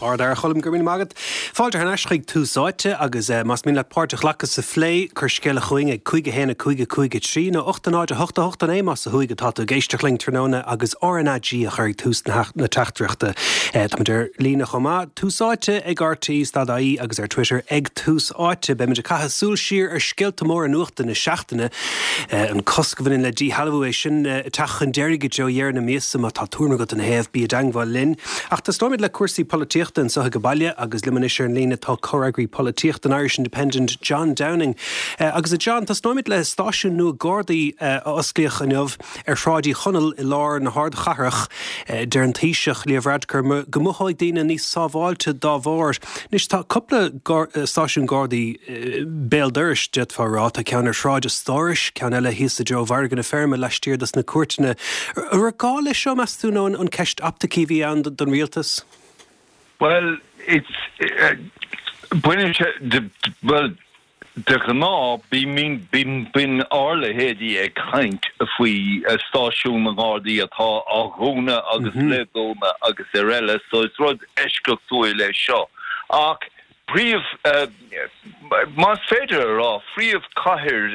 Ard-fhear, a Choilm, go raibh míle maith agat. Fáilte thar n-ais chuig Tús Áite agus más mian leat páirt a ghlacadh sa phlé, cuir scéala chugainn ag 5 1 5 5 3 nó 8 0 8 8 9 más ó thuaidh atá tú ag éisteacht linn tráthnóna agus RnaG a chur ag tús na teachtaireachta. Táimid ar líne chomh maith, Tús Áite ag RTÉ stad ie agus ar Twitter ag Tús Áite. Beimid ag caitheamh súil siar ar scéalta móra nuachta na seachtaine. An cosc a bhaineann le díshealbhú, é sin ag teacht chun deiridh i dtreo dheireadh na míosa. Má tá tuairim agat ina thaobh, bí i dteangmháil linn. Ach tosnóimid le cúrsaí polaitíochta anseo ag baile agus liom anois ar an líne tá comhfhreagraí polaitíochta an Irish Independent, John Downing. Agus a John, tosnóimid le stáisiún nua Gardaí a osclaíodh inniu ar Shráid Uí Chonaill i lár na hardchathrach. Deir an Taoiseach, Leo Varadkar, go mothóidh daoine níos sábháilte dá bharr. Anois tá cúpla stáisiún Gardaí béal dorais, d'fhéadfá a rá. Tá ceann ar Shráid an Stórais, ceann eile thíos i dtreo Mhargadh na Feirme laistiar dos na cúirteanna. An raibh gá leis seo, meas tú, nó an ceist optaicí a bhí ann don rialtas? Bhuel, it's, baineann sé, bhuel, De ghnáth, bíonn ár leithéidí ag caint faoi stáisiún na nGardaí atá á dhúnadh agus le dúnadh agus ar eile, so is rud eisceachtúil é seo. Ach príomh, más féidir a rá, phríomhchathair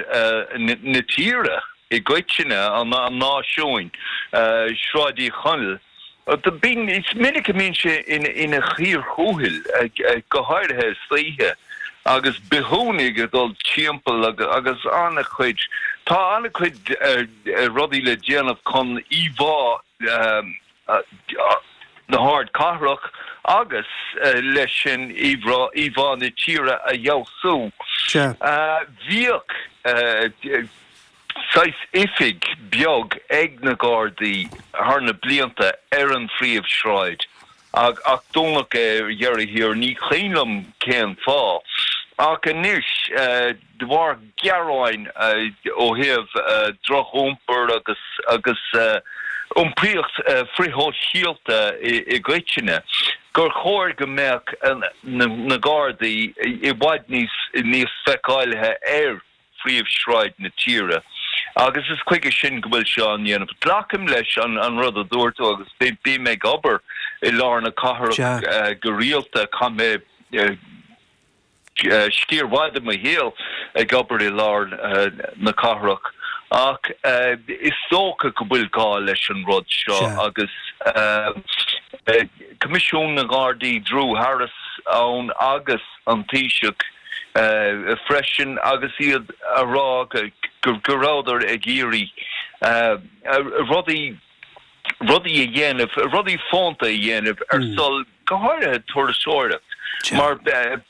na tíre i gcoitinne, an náisiúin, Sráid Uí Chonaill, Bíonn, is minic a mbíonn sé ina chíor thuathail, go háirithe istoíche, agus bithiúnaigh ag dul timpeall agus an-chuid, tá an-chuid rudaí le déanamh chun íomhá na hardchathrach agus leis sin íomhá na tíre a fheabhsú. Bhíodh. saghas oifig beag ag na Gardaí thar na blianta ar an phríomhshráid ach dúnadh é ar dheireadh thiar, ní cuimhin liom cén fáth. Ach anois, de bharr gearáin ó thaobh droch-iompar agus agus iompraíocht frithshóisialta i gcoitinne, gur chóir go mbeadh na Gardaí i bhfad níos níos feiceálaithe ar phríomhshráid na tíre agus is chuige sin go bhfuil sé á ndéanamh. Glacaim leis an rud a dúirt tú agus bím ag obair i lár na cathrach go rialta, chaith mé sciar mhaith de mo shaol ag obair i lár na cathrach ach is dócha go bhfuil gá leis an rud seo agus Coimisiún na nGardaí, Drew Harris ann agus an Taoiseach, freisin agus iad a rá go rabhadar ag iarraidh rudaí rudaí a dhéanamh, rudaí fónta a dhéanamh ar son, go háirithe turasóireacht, mar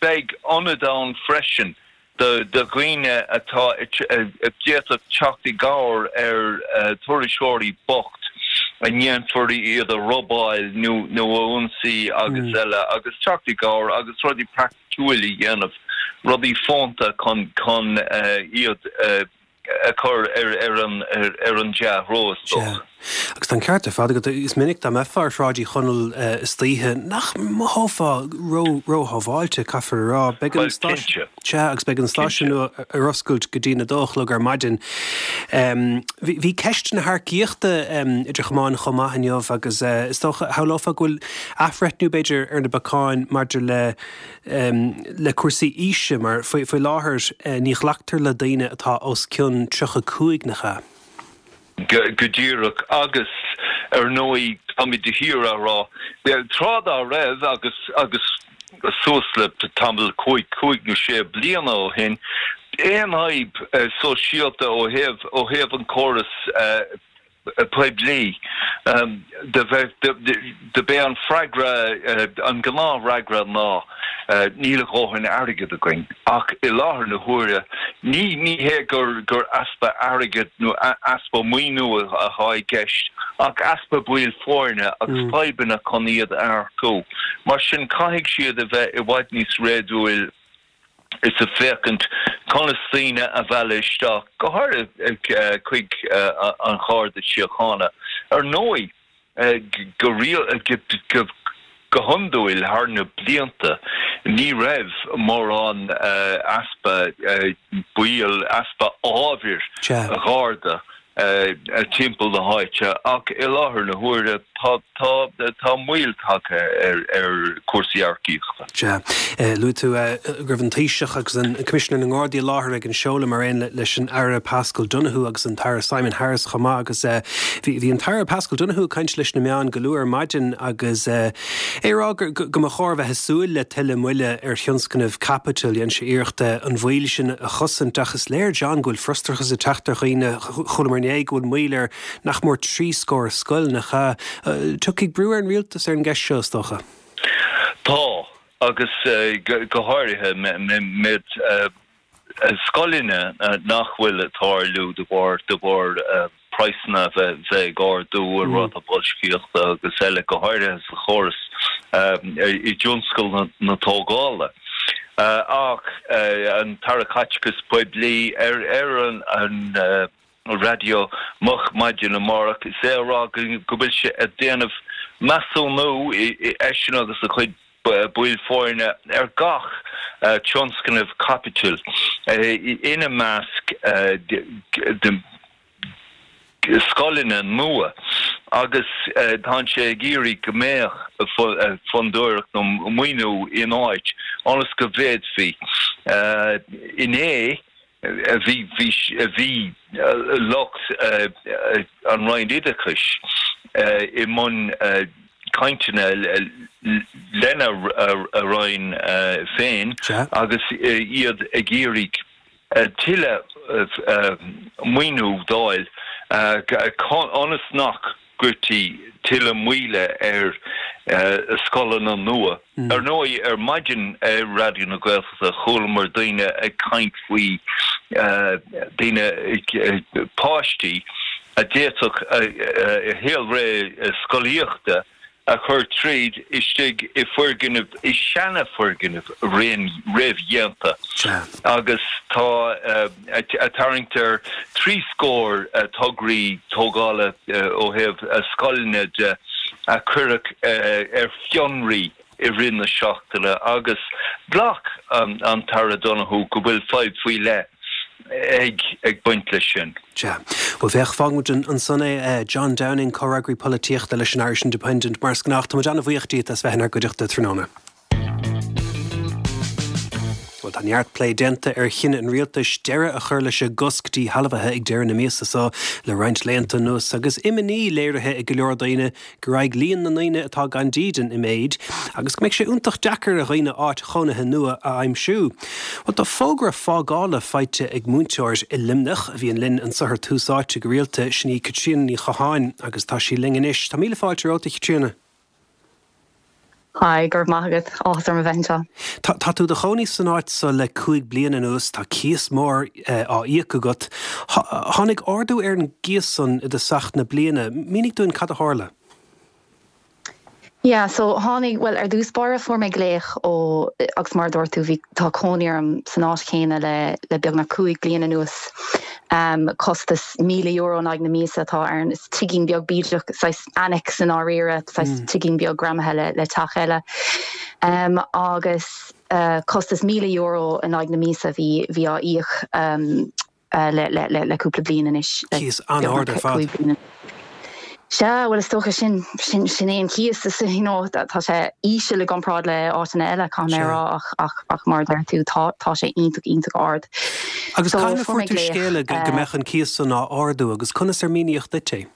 beidh ionad ann freisin do dhaoine atá a d'fhéadfadh teacht i gcabhair ar thurasóirí bocht a ndéanfar iad a robáil nó a ionsaí agus eile agus teacht i gcabhair agus rudaí praiticiúil a dhéanamh, rudaí fónta chun chun iad a chur ar an ar an dea-threo is dócha. Sea. Agus tá an ceart ar fad agat. Is minic dá mbeifeá ar Shráid Uí Chonaill istoíche nach mothófá ró róshábháilte, caithfear a rá. Beidh an stáisiún. Sea, agus beidh an stáisiún nua ar oscailt go dtí'n 2 a chlog ar maidin. Bhí ceist na hearcaíochta idir chamáin chomh maith inniu agus is dócha, shamhlófá go bhfuil athbhreithniú, b'fhéidir, ar na bacáin maidir le le cúrsaí aoise mar faoi láthair ní ghlactar le daoine atá os cionn 35, nach ea? Go díreach. Agus, ar ndóigh, táimid de shíor á rá, tráth dá raibh, agus agus suas le tamall, cúig, cúig nó sé bliana ó shin, aon fhadhb sóisialta ó thaobh, ó thaobh an córas poiblí, do bheith, do b'é an freagra, an gnáthfhreagra ná níl a dhóthain airgid againn. Ach i láthair na huaire, ní, ní hé gur, gur easpa airgid nó easpa maoiniú atá i gceist ach easpa baill foirne agus fadhbanna chun iad a earcú. Mar sin, caithfidh siad a bheith i bhfad níos réadúil is ag féachaint conas daoine a mhealladh isteach, go háirithe chuig an Gharda Síochána. Ar ndóigh, go hiondúil thar na blianta ní raibh mórán easpa baill, easpa ábhair Gharda. timpeall na háite ach i láthair na huaire tá tá moill tagtha ar ar chúrsaí earcaíochta. Sea. Luaigh tú go raibh an Taoiseach agus an Coimisinéir na nGardaí i láthair ag an seoladh mar aon leis an Aire Paschal Donohoe agus an tAire Simon Harris chomh maith agus bhí an tAire Paschal Donohoe ag caint leis na meáin go luath ar maidin agus é ag rá go mba chóir bheith ag súil le tuilleadh moille ar thionscnamh caipitil. Dhein sé iarracht an mhoill sin a chosaint ach is léir, John, go bhfuil frustrachas ag teacht ar dhaoine. Chualamar inné go bhfuil moill ar nach mór 30 scoil, nach ea? Tiocfaidh brú ar an rialtas ar an gceist seo, is dócha. Tá, agus go háirithe méid scoileanna nach bhfuil ag tarlú de bharr de bharr praghsanna a bheith ag ardú, an ráta boilscíochta agus eile, go háirithe sa chóras i dtionscal na tógála. Ach an tAire Caiteachais Poiblí ar ar an raidió moch maidin amárach is é a rá go bhfuil sé ag déanamh measúnú, eisean agus a chuid baill foirne, ar gach tionscnamh caipitil, ina measc scoileanna nua, agus tá sé ag iarraidh go mbeadh fondúireacht nó maoiniú in áit ionas go bhféadfaí. Inné, Bhí bhí lucht an Roinn Oideachais i mbun cainteanna lena Roinn féin agus iad ag iarraidh tuilleadh maoiniú d'fháil ionas nach gcuirtí tuilleadh moille ar scoileanna nua. Ar ndóigh, ar maidin ar Raidió na Gaeltachta chualamar daoine ag caint faoi daoine, páistí a d'fhéadfadh a saolré scolaíochta a chur tríd istigh i foirgnimh, i seana-fhoirgnimh réamhdhéanta agus tá ag tarraingt ar thrí scór tograí tógála ó thaobh scoileanna de a cuireadh ar fionraí i rith na seachtaine agus ghlac an tAire Donohoe go bhfuil fadhb faoi leith ag baint leis sin. Sea. Bhuel, féach, fágfaidh muid ansan é. John Downing, Comhfhreagraí Polaitíochta leis an Irish Independent. Mar is gnách, tá muid an-bhuíoch díot as bheith inár gcuideachta tráthnóna. Bhuel, tá neart plé déanta ar chinneadh an rialtais deireadh a chur leis an gcosc díshealbhaithe ag deireadh na míosa seo le roinnt laethanta anuas agus imní léirithe ag go leor daoine go raghaidh líon na ndaoine atá gan dídean i méid agus go mbeidh sé iontach deacair ar dhaoine áit chónaithe nua a aimsiú. Bhuel, tá fógra fágála faighte ag múinteoir i Luimneach a bhíonn linn anseo ar Tús Áite go rialta, sin í Caitríona Ní Chatháin agus tá sí linn anois. Tá míle fáilte romhat, a Chaitríona. Hi, go raibh maith agat. Áthas orm a bheith anseo. Tá tá tú i do chónaí san áit so le 5 bliana anuas, tá cíos mór á íoc agat. Tháinig ardú ar an gcíos san i dtosach na bliana. Mínigh dúinn cad a tharla. Yeah, so tháinig, bhuel ar dtús báire fuair mé glaoch ó, agus mar a dúirt tú, bhí, tá cónaí orm san áit chéanna le le beagnach 5 bliana anuas. Costas €1,000 in aghaidh na míosa atá ann. Is tigín beag bídeach, saghas annex i ndáiríre, saghas tigín beag greamaithe le le teach eile. Agus costas €1,000 in aghaidh na míosa a bhí bhí á íoc le le le le cúpla bliain anois. Cíos an-ard ar fad. Sea, bhuel is dócha sin, sin, sin é an cíos, is, you know, tá sé íseal i gcomparáid le áiteanna eile, caithfidh mé a rá, ach, ach, ach mar a deir tú, tá, tá sé iontach, iontach ard. Agus So, cathain a fuair fuair mé tú glaoch, scéala go, go mbeadh an cíos san á ardú agus conas ar míníodh duit é?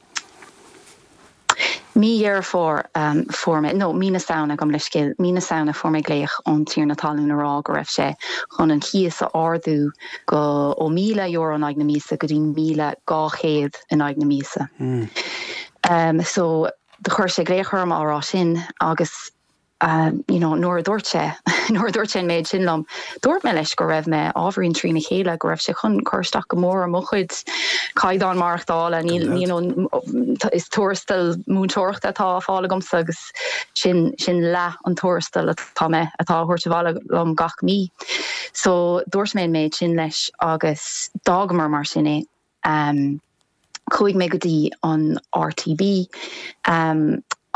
Mí Dheireadh Fómhair fuair mé, nó mí na Samhna, gabh mo leithscéal, mí na Samhna fuair mé glaoch ón tiarna talún a rá go raibh sé chun an cíos a ardú go, ó €1,000 in aghaidh na míosa go dtí 1,200 in aghaidh na míosa. So do chuir sé glaoch orm á rá sin agus you know nuair a dúirt sé, nuair a dúirt sé an méid sin liom, dúirt mé leis go raibh mé ábhairín trína chéile, go raibh sé chun cur isteach go mór ar mo chuid caighdeán maireachtála, níl, you know, is tuarastal múinteoireachta atá á fáil agamsa agus sin, sin leath an tuarastail atá mé, atá á thabhairt abhaile liom gach mí. So dúirt mé an méid sin leis agus d'fhágamar mar sin é. Chuaigh mé go dtí an RTB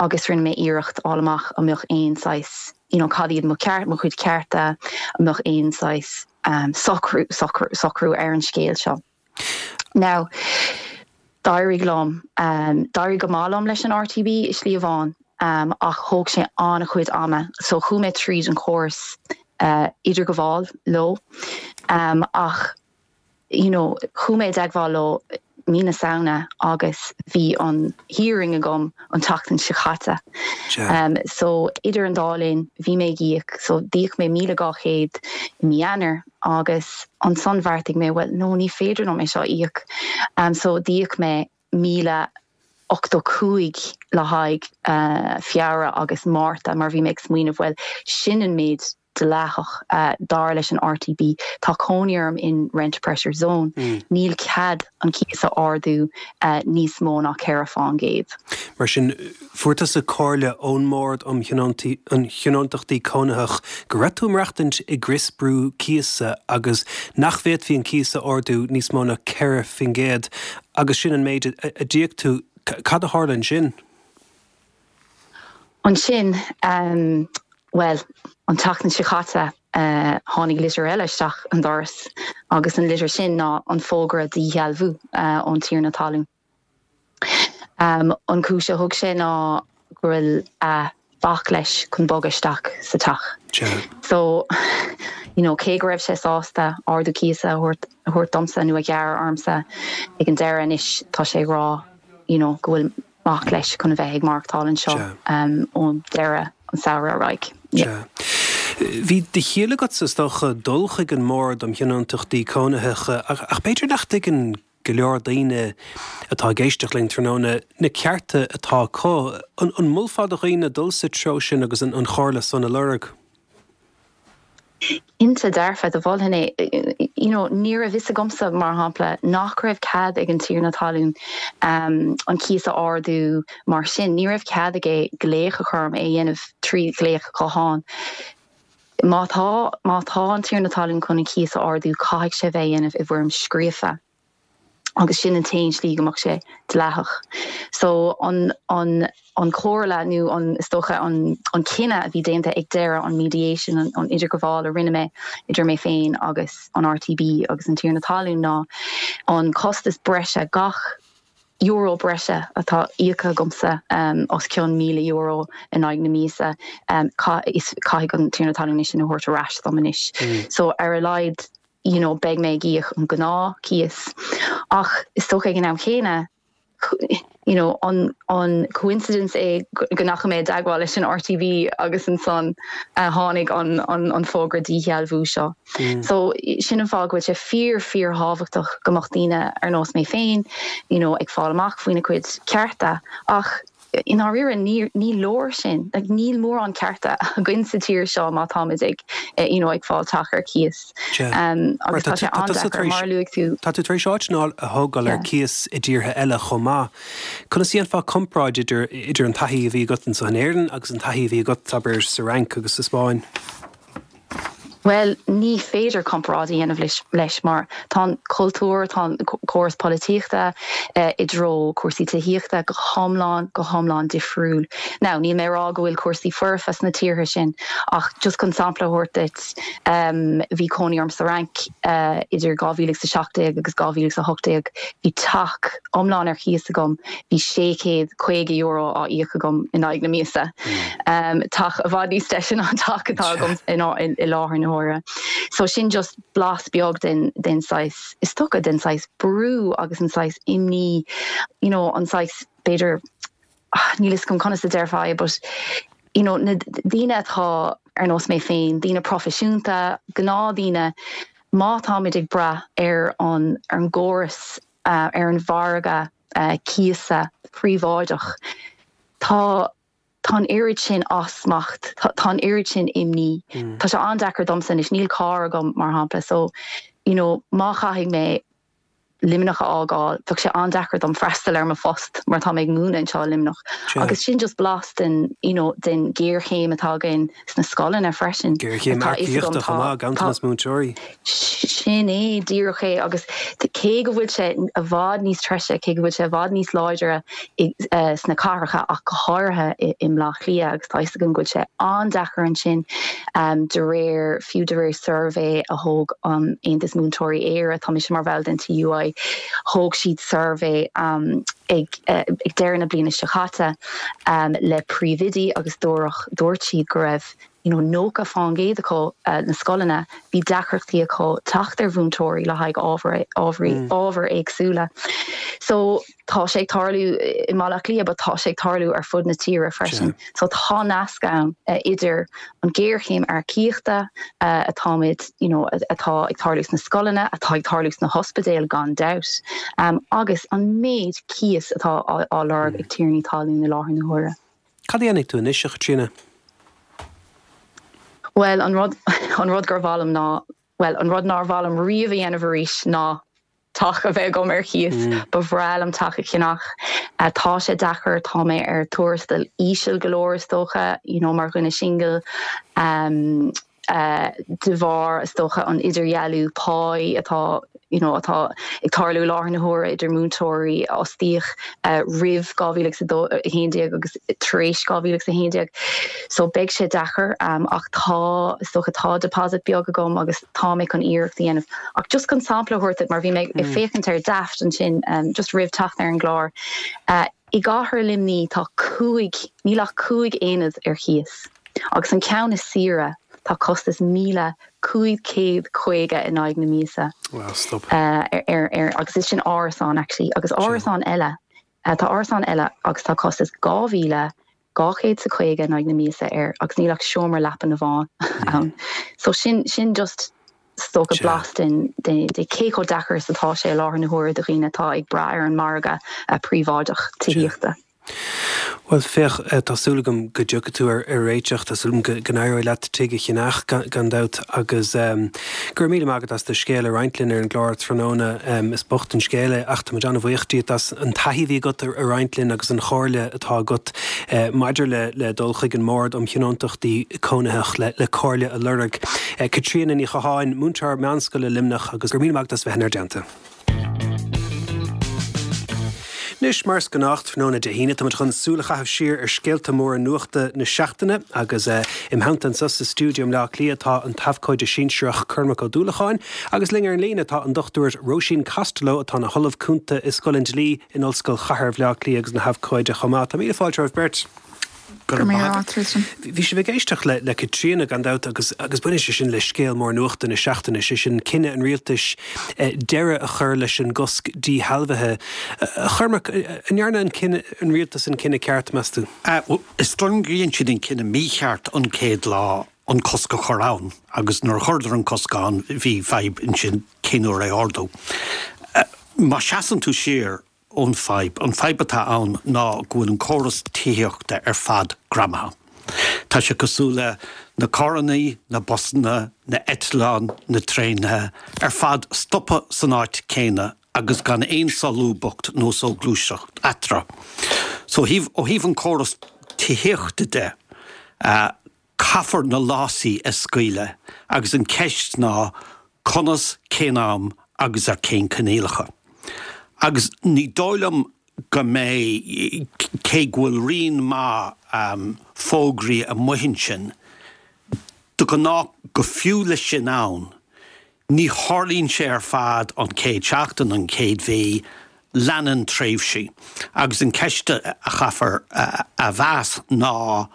agus rinne mé iarracht fháil amach an mbeadh aon saghas, you know, cad iad mo cheart, mo chuid cearta, an mbeadh aon saghas socrú, socrú, socrú ar an scéal seo. Now. D'éirigh liom, d'éirigh go maith liom leis an RTB i slí amháin ach thóg sé an-chuid ama so chuaigh mé tríd an chóras idirghabháil leo ach you know chuaigh mé i dteagmháil leo mí na Samhna agus bhí an hearing agam an tseachtain seo caite. So idir an dá linn bhí mé ag íoc so d'íoc mé 1,200 i mí Eanáir agus ansan bheartaigh mé bhuel no ní féidir liom é seo a íoc so d'íoc mé 1,085 le haghaidh Feabhra agus Márta mar bhí mé ag smaoineamh bhuel sin an méid dleathach dar leis an RTB. Tá cónaí orm in rent pressure zone. Níl cead an cíos a ardú níos mó ná 4 fán gcéad. Mar sin, fuair tusa comhairle ón mBord um Thionóntachtaí Cónaitheach go raibh tú ag maireachtaint i gcrios brú cíosa agus nach bhféadfaí an cíos a ardú níos mó ná 4% agus sin an méid a d'íoc tú. Cad a tharla ansin? Ansin, bhuel, an tseachtain seo caite, tháinig litir eile isteach an doras agus an litir sin ná an fógra díshealbhú ón tiarna talún. An cúis a thug sé ná go bhfuil a mhac leis chun bogadh isteach sa teach. So, you know, cé go raibh sé sásta ardú cíosa a thabhairt, a thabhairt domsa nó a ghearradh ormsa ag an deireadh anois tá sé ag rá, you know, go bhfuil mac leis chun a bheith ag maireachtáil anseo ó deireadh an samhradh ar aghaidh. Sea. Bhí de chiall agatsa, is dócha, dul chuig an mBord um Thionóntachtaí Cónaitheacha ach b'fhéidir nach dtuigeann go leor daoine atá ag éisteacht linn tráthnóna na cearta atá acu. An molfá do dhaoine dul sa treo sin agus an chomhairle san a lorg? Cinnte dearfa, do mholfainn é. You know, ní raibh fhios agamsa, mar shampla, nach raibh cead ag an tiarna talún an cíos a ardú mar sin. Ní raibh cead aige glaoch a chur orm, é a dhéanamh trí ghlaoch gutháin. Má tá, má tá an tiarna talún chun an cíos a ardú, caithfidh sé bheith á dhéanamh i bhfoirm scríofa. agus sin an t-aon slí go mbeadh sé dleathach. So an an an chomhairle nó an is dócha an an cinneadh a bhí déanta ag deireadh an mediation an an idirghabháil a rinne mé idir mé féin agus an RTB agus an tiarna talún ná an costas breise gach euro breise atá íoctha agamsa os cionn €1,000 in aghaidh na míosa caithfidh an tiarna talún é sin a thabhairt ar ais dom anois. So ar a laghad you know beidh mé ag íoc an gnáth cíos ach is dócha ag an am chéanna you know an an coincidence é go ndeachaigh mé i dteagmháil leis an RTB agus ansan tháinig an an an fógra díshealbhú seo. So sin an fáth go bhfuil sé fíor fíor thábhachtach go mbeadh daoine ar nós mé féin you know ag fáil amach faoina gcuid cearta ach I ndáiríre, ní leor sin. Like, níl mórán cearta againn sa tír seo má táimid ag, you know, ag fáil teach ar cíos. Agus tá sé an-deacair, mar a luaigh tú. Tá tú tar éis áit a thógáil ar cíos i dtíortha eile chomh maith. Conas a dhéanfá comparáid idir idir an taithí a bhí agat anseo in Éirinn agus an taithí a bhí agat, abair, sa Fhrainc agus sa Spáinn? Bhuel, ní féidir comparáid a dhéanamh leis mar tá an cultúr, tá an córas polaitíochta i dtreo cúrsaí tithíochta go hiomlán, go hiomlán difriúil. Now, níl mé ag rá go bhfuil cúrsaí foirfe sna tíortha sin ach just chun sampla a thabhairt duit, bhí cónaí orm sa Fhrainc idir 2017 agus 2018, bhí teach iomlán ar chíos agam, bhí €650 á íoc agam in aghaidh na míosa. Teach i bhfad níos deise ná an teach atá agam i láthair na huaire. So sin just blas beag den den saghas, is dócha, den saghas brú agus an saghas imní, you know, an saghas b'fhéidir, níl fhios agam conas a déarfá é but, you know, na daoine atá ar nós mé féin, daoine proifisiúnta, gnáthdhaoine, má táimid ag brath ar an ar an gcóras, ar an mhargadh cíosa príobháideach, Tá, tá an oiread sin as smacht, tá an oiread sin imní. Tá sé an-deacair domsa anois, níl carr agam mar shampla so you know má chaithfidh mé Luimneach a fhágáil, bheadh sé an-deacair dom freastal ar mo phost mar tá mé ag múineadh anseo i Luimneach. Agus sin just blas den you know den ghéarchéim atá againn sna scoileanna freisin. Géarchéim earcaíochta chomh maith, ganntanas múinteoirí. Sin é díreach é agus cé go bhfuil sé i bhfad níos treise, cé go bhfuil sé i bhfad níos láidre sna cathracha ach go háirithe i mBleá Cliath agus tá fhios agam go bhfuil sé an-deacair ansin de réir, fiú de réir suirbhé a thóg an Aontas Múinteoirí Éire, tá mise mar bhall den TUI. Thóg siad suirbhé ag deireadh na bliana seo caite le príomhoidí agus dúradh, dúirt siad go raibh you know 90% acu na scoileanna, bhí deacrachtaí acu teacht ar mhúinteoirí le haghaidh ábhair, ábhairí, ábhair éagsúla. So tá sé ag tarlú i mBaile Átha Cliath but tá sé ag tarlú ar fud na tíre freisin. So tá nasc ann idir an ghéarchéim earcaíochta atáimid, you know, atá ag tarlú sna scoileanna, atá ag tarlú sna hospidéil gan dabht, agus an méid cíos atá á lorg ag tiarnaí talún i láthair na huaire. Cad a dhéanfaidh tú anois, a Chaitríona? Bhuel, an rud, an rud gur mhaith liom ná, bhuel, an rud nár mhaith liom riamh a dhéanamh arís ná teach a bheith agam ar cíos. Ba bhreá liom teach a cheannach. Tá sé deacair, tá mé ar tuarastal íseal go leor is dócha, you know, mar dhuine singil. De bharr, is dócha, an idirdhealú páí atá, you know, atá ag tarlú i láthair na huaire idir múinteoirí a fhostaíodh roimh 2011 agus tar éis 2011. So beidh sé deacair ach tá, is dócha, tá deposit beag agam agus tá mé chun iarracht a dhéanamh. Ach just chun sampla a thabhairt duit, mar bhí mé ag féachaint ar Daft ansin just roimh teacht ar an gclár, i gcathair Luimní tá cúig, níl ach cúig aonad ar chíos agus an ceann is saoire tá costas 1,550 in aghaidh na míosa ar, ar, agus is sin árasán actually agus árasán eile, tá árasán eile agus tá costas 2,000 250 in aghaidh na míosa air agus níl ach seomra leapan amháin ann. So sin, sin just is dócha blas den, de, de cé chomh deacair is atá sé i láthair na huaire do dhaoine atá ag brath ar an margadh príobháideach tithíochta. Bhuel, féach, tá súil agam go dtiocfaidh tú ar réiteach, tá súil agam go n-éireoidh leat tigh a cheannach, gan dabht, agus go raibh míle maith agat as do scéal a roinnt linn ar an gclár tráthnóna. Is bocht an scéal é ach tá muid an-bhuíoch díot as an taithí a bhí agat a roinnt linn agus an chomhairle atá agat maidir le dul chuig an mBord um Thionóntachtaí Cónaitheach le comhairle a lorg. Caitríona Ní Chatháin, múinteoir meánscoile Luimneach agus go raibh míle maith agat as bheith inár dteannta. Anois, mar is gnách, tráthnóna Dé hAoine, táimid chun súil a chaitheamh siar ar scéalta móra nuachta na seachtaine agus im theannta anseo sa stiúideo i mBleá Cliath tá an t-abhcóide sinsearach Cormac Ó Dúlacháin agus linn ar an líne tá an Dr Róisín Costello atá ina hOllamh Cúnta i Scoil an Dlí in Ollscoil Chathair Bhaile Átha Cliath agus ina habhcóide chomh maith. Tá míle fáilte romhaibh beirt. Go raibh maith agat, Tristan. Bhí sibh ag éisteacht le le Caitríona, gan dabht, agus agus baineann sé sin le scéal mór nuachta na seachtaine, sé sin cinneadh an rialtais deireadh a chur leis an gcosc díshealbhaithe. A Chormaic, an ndearna an cinneadh, an rialtas an cinneadh ceart, meas tú? Is dóigh liom gur dhein siad an cinneadh mícheart an chéad lá an cosc a chur ann agus nuair a chuireadar an cosc ann bhí fadhb ansin cén uair é a ardú. Má seasann tú siar ón fadhb, an fadhb atá ann ná go bhfuil an córas tithíochta ar fad greamaithe. Tá sé cosúil le na carrannaí, na busanna, na eitleáin, na traenaithe, ar fad stoptha san áit céanna agus gan aon solúbthacht nó soghluaisteacht eatarthu. So ó thaobh, ó thaobh an córas tithíochta de, caithfear na lásaí a scaoileadh agus an ceist ná conas, cén am agus ar cén coinníollacha. Agus ní dóigh liom go mbeidh, cé go bhfuil rian maith fógraí amuigh ansin, de ghnáth go fiú leis sin ann, Ní tharlaíonn sé ar fad an chéad seachtain, an chéad mhí, leanann tréimhsí. Agus an ceist a chaithfear a mheas ná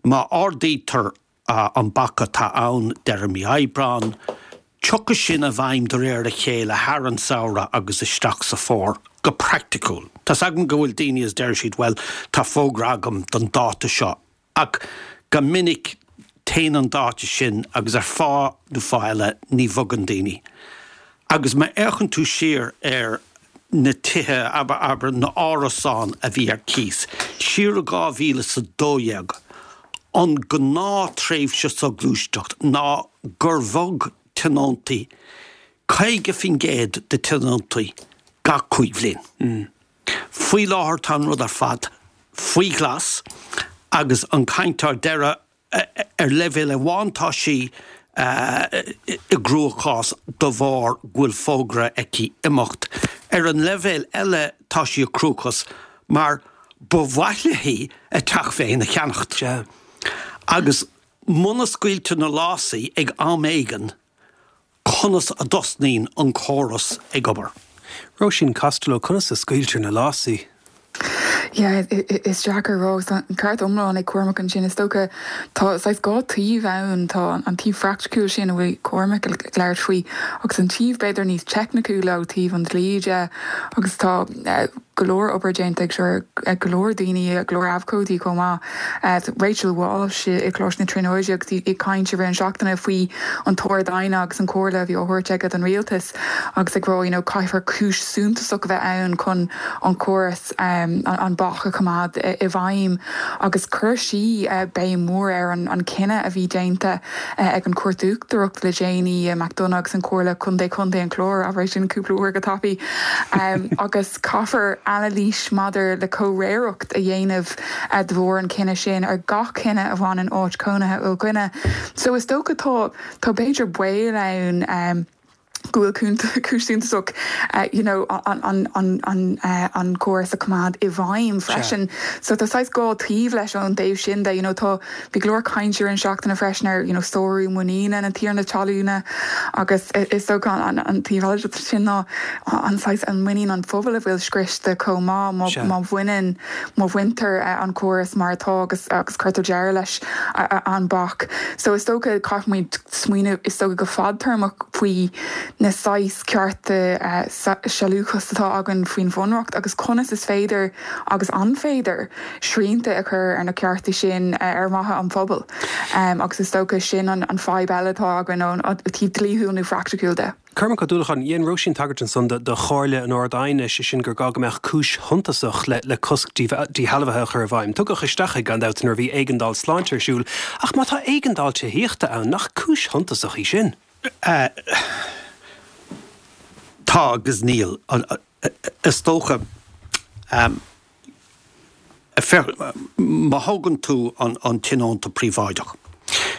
má ardaítear an bac atá ann deireadh mí Aibreán, tiocfaidh sin i bhfeidhm de réir a chéile thar an samhradh agus isteach sa fómhar, go praiticiúil. Tá's agam go bhfuil daoine is deir siad bhuel tá fógra agam don dáta seo Ach go minic téann an dáta sin agus ar fáth nó fáth eile ní bhogann daoine. Agus má fhéachann tú siar ar na tithe, abair, na árasáin a bhí ar cíos, siar i 2012, an gnáth-tréimhse soghluaisteacht ná gur bhog tionóntaí, 50% de tionóntaí gach 5 bhliain. Faoi láthair tá an rud ar fad faoi ghlas agus an chaint á deireadh ar leibhéal amháin tá sí i gcruachás de bharr go bhfuil fógra aici imeacht. Ar an leibhéal eile tá sí i gcruachás mar ba mhaith léi a teach féin a cheannacht. Agus muna scaoiltear na lásaí ag am éigin, conas a dtosnaíonn an córas ag obair. Róisín Costello, Conas a scaoiltear na lásaí? Yeah, is deacair a rá. Tá an ceart iomlán ag Cormac ansin. Is dócha tá saghas dhá taobh ann. Tá an taobh phraiticiúil sin a bhfuil Cormac ag labhairt faoi agus an taobh b'fhéidir níos teicniciúla ó taobh an dlí de agus tá go leor obair déanta ag seo ag go leor daoine, go leor abhcóidí chomh maith. Rachel Walsh i gColáiste na Tríonóide agus í ag caint i rith an seachtaine faoi an tArd-Aighne agus an comhairle a bhí á thabhairt aige don rialtas agus ag rá you know caithfear cúis suntasach a bheith ann chun an córas an bac a choimeád i bhfeidhm agus chuir sí béim mhór ar an cinneadh a bhí déanta ag an Chúirt Uachtarach le déanaí, McDonagh agus an Chomhairle Contae Chontae an Chláir, abair é sin cúpla uair go tapaidh, agus caithfear anailís maidir le comhréireacht a dhéanamh de bharr an chinnidh sin ar gach cinneadh a bhaineann áit chónaithe ó dhuine. So is dócha tá tá b'fhéidir baol ann. go bhfuil cúis suntasach you know an córas a choimeád i bhfeidhm freisin. So tá saghas dhá taobh leis ón dtaobh sin de, you know tá, bhí go leor cainte ar an seachtaine freisin ar you know sárú muiníne na tiarna talúna agus is dócha an taobh eile de sin ná an saghas an muinín an phobail a bhfuil scriosta chomh maith má bhaineann, má bhaintear an córas mar atá agus agus cuirtear deireadh leis an bac. So is dócha caithfimid smaoineamh, is dócha, go fadtéarmach faoi na saghas cearta sealúchas atá againn faoin Bhunreacht agus conas is féidir, agus an féidir, srianta a chur ar na cearta sin ar mhaithe an phobail. Agus is dócha sin an fadhb eile atá againn ón taobh dlíthiúil nó phraiticiúil de. Cormac Ó Dúlacháin, Dhein Róisín tagairt ansan do chomhairle an Ard-Aighne, sé sin gur gá go mbeadh cúis shuntasach le cosc díshealbhaithe a chur i bhfeidhm. Tugadh isteach é gan dabht nuair a bhí éigeandáil sláinte ar siúl, ach má tá éigeandáil tithíochta ann, nach cúis shuntasach í sin? Tá agus níl. Is dócha. Féach, má thógann tú an tionónta príobháideach,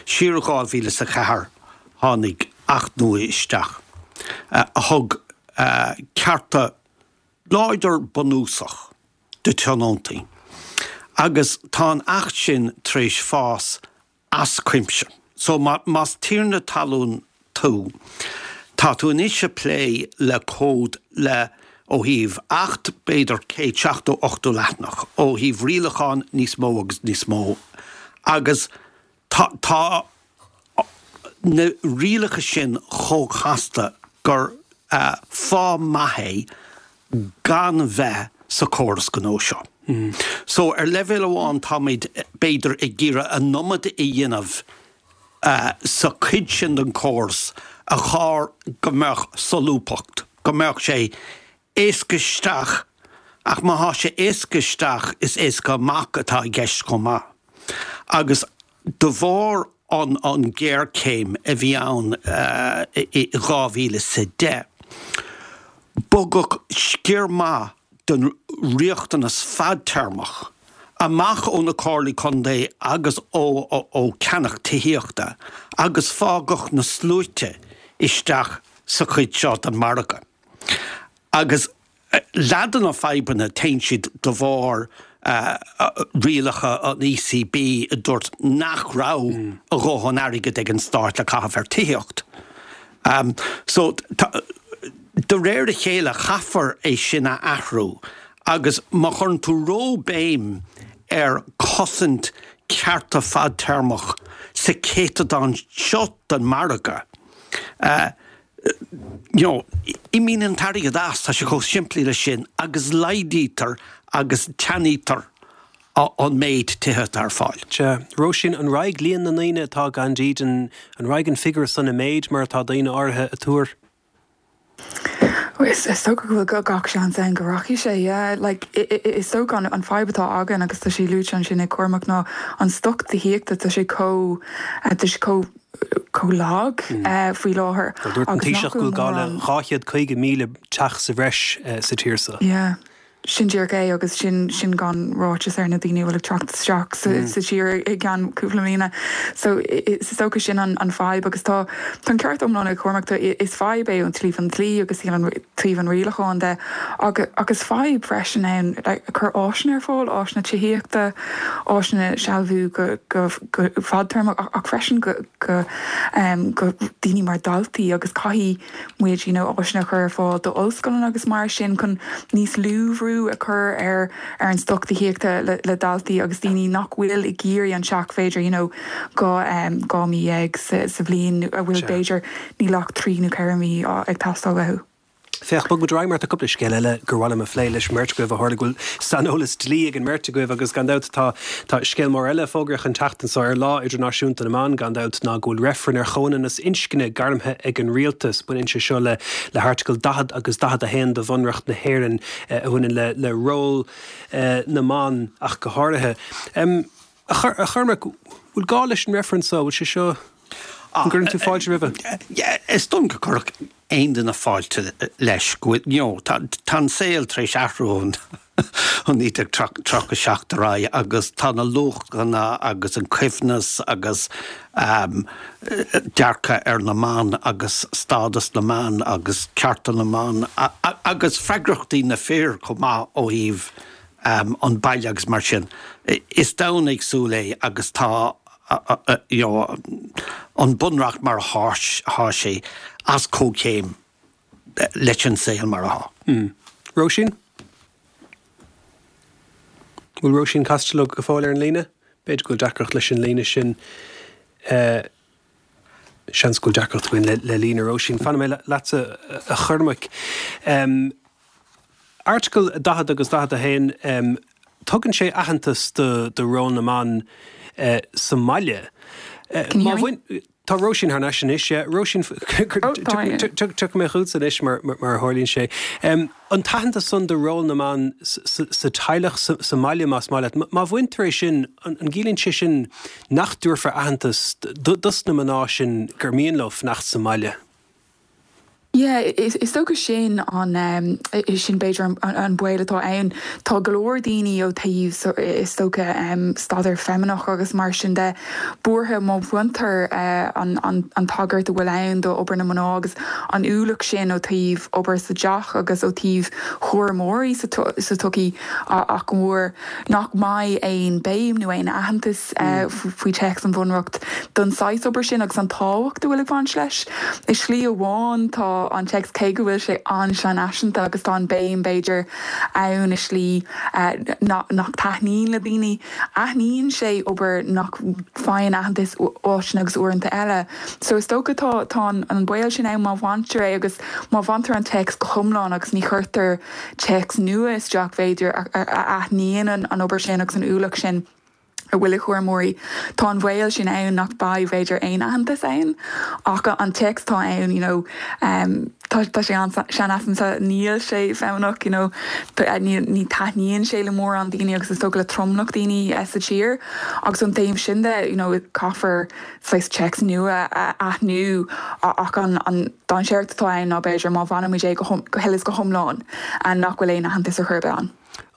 siar i 2004 tháinig Acht nua isteach a thug cearta láidir bunúsach do tionóntaí agus tá an Acht sin tar éis fás as cuimse. So más tiarna talún tú, tá tú anois ag plé le cód le, ó thaobh Acht, b'fhéidir 170, 80 leathanach, ó thaobh rialachán níos mó agus níos mó agus tá, tá na rialacha sin chomh casta gur fáth maith é gan bheith sa chóras gnó seo. So, ar leibhéal amháin táimid b'fhéidir ag iarraidh an iomad a dhéanamh sa chuid sin den chóras a chóir go mbeadh solúbthacht, go mbeadh sé éasca isteach ach má thá sé éasca isteach is éasca amach atá i gceist chomh maith. Agus de bharr an an ghéarchéim a bhí ann i 2010, bogadh sciar maith den riachtanas fadtéarmach amach ó na Comhairlí Contae agus ó ó cheannach tithíochta agus fágadh na sluaite isteach sa chuid seo den margadh. Agus leath de na fadhbanna, téann siad de bharr rialacha an ECB a dúirt nach raibh a dhóthain airgid ag an stát le caitheamh ar tithíocht. So, de réir a chéile chaithfear é sin a athrú agus má chuireann tú ró-bhéim ar chosaint cearta fadtéarmach sa chéatadán seo den margadh, you know, imíonn an t-airgead as, tá sé chomh simplí leis sin, agus laghdaítear agus teannaítear an méid tithe atá ar fáil. Sea. Róisín, an raghaidh líon na ndaoine atá gan dídean, an raghaidh an figiúr san i méid mar atá daoine áirithe ag tuar? Is dócha go bhfuil gach seans ann go rachaidh sé, yeah. Like, is dócha an fadhb atá againn, agus tá sé luaite ansin ag Cormac, ná an stoc tithíochta, tá sé chomh, tá sé chomh, chomh lag faoi láthair Dúirt an Taoiseach go bhfuil gá le 250,000 teach sa bhreis sa tír seo. Yeah. Sin díreach é agus sin sin gan ráiteas ar na daoine a bhfuil ag teacht isteach sa tír i gceann cúpla mbliana. So is dócha sin an fadhb agus tá tá an ceart iomlán ag Cormac, tá is fadhb é ón taobh an dlí agus taobh an rialacháin de ach is fadhb freisin ann like cur áiseanna ar fáil, áiseanna tithíochta, áiseanna sealbhú go go go fadtéarmach ach freisin go go go daoine mar daltaí agus caithfidh muid you know áiseanna a chur ar fáil d'ollscoileanna agus mar sin chun níos lú bhrú a chur ar ar an stoc tithíochta le le daltaí agus daoine nach bhfuil ag iarraidh an teach b'fhéidir you know 12 mí sa sa bhliain a bhfuil b'fhéidir níl ach 3 nó 4 mí ag teastáil uathu. Féach, bog muid ar aghaidh mar tá cúpla scéal eile gur mhaith liom a phlé leis an mbeirt agaibh ó tharla go bhfuil saineolas dlí ag an mbeirt agaibh agus gan dabht tá tá scéal mór eile fógraithe an tseachtain seo ar Lá Idirnáisiúnta na mBan gan dabht ná go bhfuil reifreann ar chomhionannas inscne gairmthe ag an rialtas. Baineann sé seo le le hAirteagal 40 agus 41 de Bhunreacht na hÉireann a bhaineann le le ról na mban ach go háirithe. A Chormaic, bhfuil gá leis an reifreann seo? Bhfuil sé seo, an gcuireann tú fáilte roimhe? Is dóigh liom go gcuirfeadh aon duine fáilte leis go bhfuil, you know, tá tá an saol tar éis athrú ó 1937 ar aghaidh agus tá na luachanna agus an coibhneas agus dearcadh ar na mban agus stádas na mban agus cearta na mban agus freagrachtaí na fir chomh maith ó thaobh an baile agus mar sin. Is domhan éagsúil é agus tá you know an bunreacht mar atá sé as comhchéim leis an saol mar atá. Róisín? Bhfuil Róisín Costello go fóill ar an líne? B'fhéidir go bhfuil deacracht leis an líne sin. Seans go bhfuil deacracht againn le líne Róisín. Fanfaidh mé leatsa a Chormaic. Airteagal 40 agus 41, tugann sé aitheantas do ról na mban sa mbaile. Can you hear me? Tá Róisín thar n-ais anois, yeah. Róisín, tiocfaidh mé chugatsa anois mar a tharlaíonn sé. An t-aitheantas san do ról na mban sa teaghlach, sa mbaile más maith leat, má bhaintear é sin, an gciallaíonn sé sin nach dtabharfar aitheantas dos na mná sin gur mian leo fanacht sa mbaile? Yeah, is dócha sin an, sin b'fhéidir an baol atá ann. Tá go leor daoine ó thaobh, is dócha, staidéar feimineach agus mar sin de, buartha má bhaintear an tagairt a bhfuil ann do obair na mná agus an ualach sin ó thaobh obair sa teach agus ó thaobh chúramóirí sa tsochaí ach go mór nach mbeidh aon béim nó aon aitheantas faoi téacs an Bhunreacht don saghas obair sin agus an tábhacht a bhfuil ag baint leis. I slí amháin tá an téacs, cé go bhfuil sé an-seanfhaiseanta agus tá an béim, b'fhéidir, ann i slí nach taitníonn le daoine, aithníonn sé obair nach bhfaigheann aitheantas áiteanna agus uaireanta eile. So is dócha tá tá an baol sin ann má bhaintear é agus má bhaintear an téacs go hiomlán agus ní chuirtear téacs nua isteach, b'fhéidir, a aithníonn an obair sin agus an ualach sin. a bhfuil ag chúramóirí. Tá an bhaol sin ann nach mbeidh, b'fhéidir, aon aitheantas ann ach an téacs atá ann, you know, tá tá sé an-seanfhaiseanta, níl sé feimineach, you know, ní ní taitníonn sé le mórán daoine agus is dócha le tromlach daoine sa tír agus ón taobh sin de, you know, caithfear saghas téacs nua a aithniú ach an an dainséar atá ann ná b'fhéidir má bhainimid é go go huile is go hiomlán nach bhfuil aon aitheantas ar chor ar bith ann.